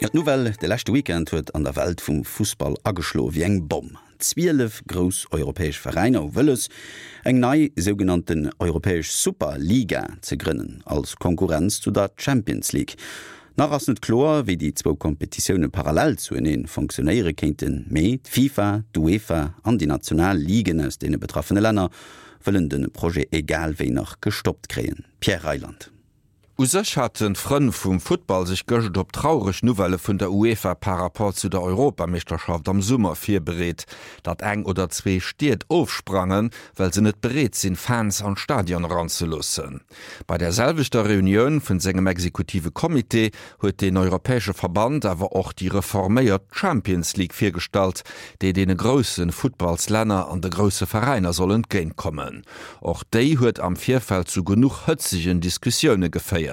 D'Nouvelle de leschte Weekend huet an der Welt vum Fussball ageschloe wéi eng Bomm. 12 grouss europäesch Veräiner hu wëlles, eng nei sougenannten europäesch Super-Liga ze grënnen, als Konkurrenz zu der Champions League. Nach ass net kloer, wéi déi zwou Kompetitioune parallel zuenee fonctionéiere kéinten, mee d'FIFA, d'UEFA an déi national Ligen aus deene betraffene Länner wëllen de Projet egal wéi nach gestoppt kréien. Pierre Reyland. U sech haten d'Frënn vum Futtball sech gëscht op traureg Nouvellë vun der UEFA par Rapport zu der Europameeschterschaft am Summer virbereet. Datt eng oder zwee Stied ofsprangen, well se net bereet sinn, Fans an d'Stadion eranzeloossen. Bei der selwechter Reunioun vun sengem exekutive Comité huet den europäesche Verband awer och déi reforméiert Champions League virgestallt, déi deene grousse Futtballslänner an de grousse Veräiner soll entgéintkommen. Och déi huet am Virfeld zu genuch hëtzegen Diskussioune geféiert.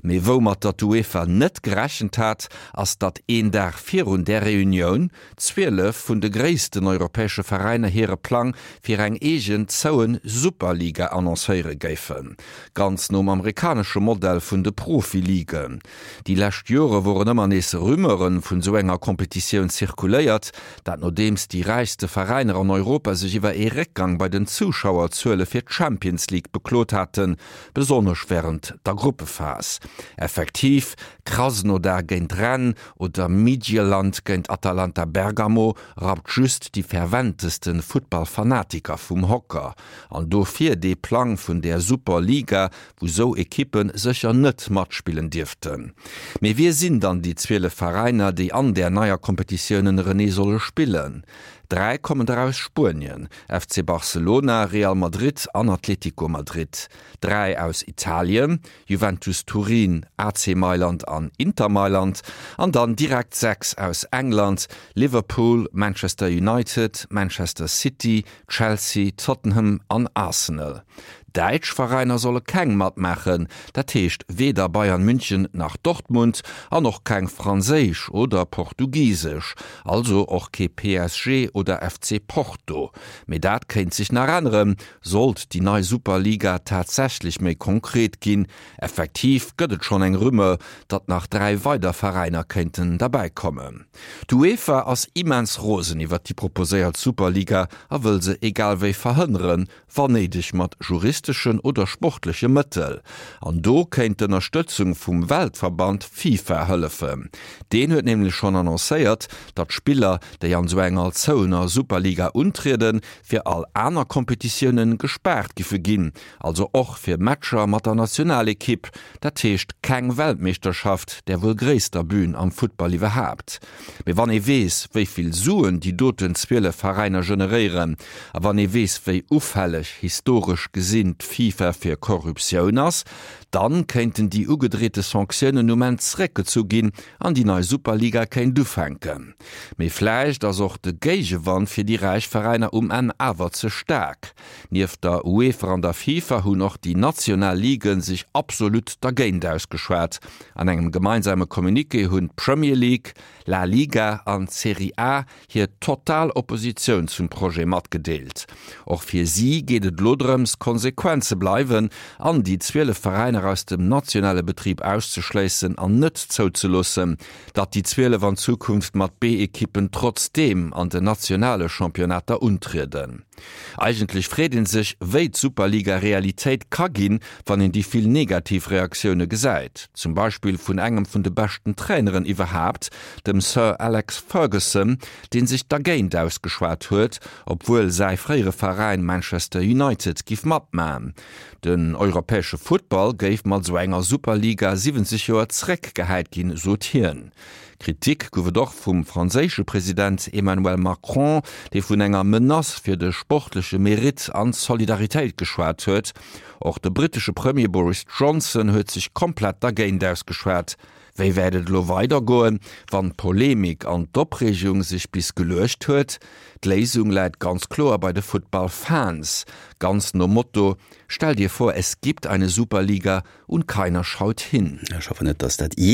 Mee woumatter d'UEFA net gerechent hat, ass datt een Dag virun där Reunioun 12 vun de gréissten europäesche Veräiner hire Plang fir eng eegen zouen Superliga annoncéiere géifen. Ganz nom amerikanesche Modell vun de Profiligen. Déi lescht Jore woren ëmmer nees Rumeure vun esou enger Kompetitioun zirkuléiert, dat nodeems déi räichste Veräiner an Europa sech iwwer ee Réckgang bei den Zuschauerzuele fir d'Champions League beklot haten, besonnesch wärend der Gruppephas. Effektiv, Krasnodar géint Rennes oder Midtjylland géint Atalanta Bergamo rappt just déi ferventeste Futtballfanatiker vum Hocker. An dofir dee Plang vun där Superliga, wou sou Ekippe sécher net matspillen dierften. Mee wie sinn dann déi 12 Veräiner, déi an där neier Kompetitioun ënnerenee solle spillen? Dräi kommen der aus Spuenien, FC Barcelona, Real Madrid an Atlético Madrid, dräi aus Italien, Juventus Turin, AC Mailand an Inter Mailand, an dann direkt 6 aus England, Liverpool, Manchester United, Manchester City, Chelsea, Tottenham an Arsenal. Däitsch Veräiner solle keng matmaachen, dat heescht weder Bayern München nach Dortmund an och keng franséisch oder portugisesch, also och kee PSG oder FC Porto. Mee dat kéint sech nach änneren, sollt déi nei Superliga tatsächlech méi konkret ginn. Effektiv gëtt et schonn eng Rumeur, datt nach 3 weider Veräiner kéinten derbäi kommen. D'UEFA ass immens rosen iwwert déi proposéiert Superliga a wëll se egal wéi verhënneren, wann néideg mat juristeschen oder sportleche Mëttel. An do kéint d'Ënnerstëtzung vum Weltverband FIFA hëllefen. Deen huet nämlech schonn annoncéiert, datt Spiller, déi an esou enger zouener Superliga untrieden, fir all aner Kompetitioune gespaart giffe ginn, also och fir Matcher mat der Nationalekipp. Dat heescht keng Weltmeeschterschaft, där wuel gréisster Bün am Futtball iwwerhaapt. Mee wann ee weess, wéi vill Suen déi doten 12 Veräiner generéieren, a wann ee weess, wéi ufälleg, historesch gesinn, d'FIFA fir Korruptioun ass, dann kéinten déi ugedreete Sanktiounen um Enn zeréckgezu ginn an déi nei Superliga kéint ufänken. Mee vläicht ass och de Géigewand fir déi räich Veräiner um Enn awer ze staark. Nieft der UEFA an der FIFA hunn och déi national Liguen sech absolut dergéint ausgeschwat. An engem gemeinsame Communiqué hunn d'Premier League, La Liga an d'Serie A hir total Oppositioun zum Projet matgedeelt. Och fir si geet et elo drëms, konsequent ze bleiwen an déi 12 Veräiner aus dem nationale Betrib auszeschléissen an net zouzeloossen, datt déi 12 an Zukunft mat B-Ekippen trotzdeem an den nationale Championnater untrieden. Eigentlech freet een sech, wéi d'Superliga Realitéit ka ginn, wann een déi vill negativ Reaktioune gesäit. Zum Beispill vun engem vun de beschten Traineren iwwerhaapt, dem Sir Alex Ferguson, dee sech dergéint ausgeschwat huet, obwuel säi fréiere Veräin Manchester United giff matman. Den europäesche Futtball géif mat esou enger Superliga 70 Joer zeréckgehäit ginn, sot hien. Kritik gouf et och vum franséische President Emmanuel Macron, dee vun enger Menace fir de sportleche Meritt an d'Solidaritéit geschwat huet. Och de brittesche Premier Boris Johnson huet sech komplett dergéint ausgeschwat. Wéi wäert et elo weidergoen, wann d'Polemik an d'Opreegung sech bis geluecht huet? D'Léisung läit ganz kloer bei de Futtballfans, ganz nom Motto, Stell dir vor, es gibt eine Superliga und keiner schaut hin. Ech hoffen net, dass dat.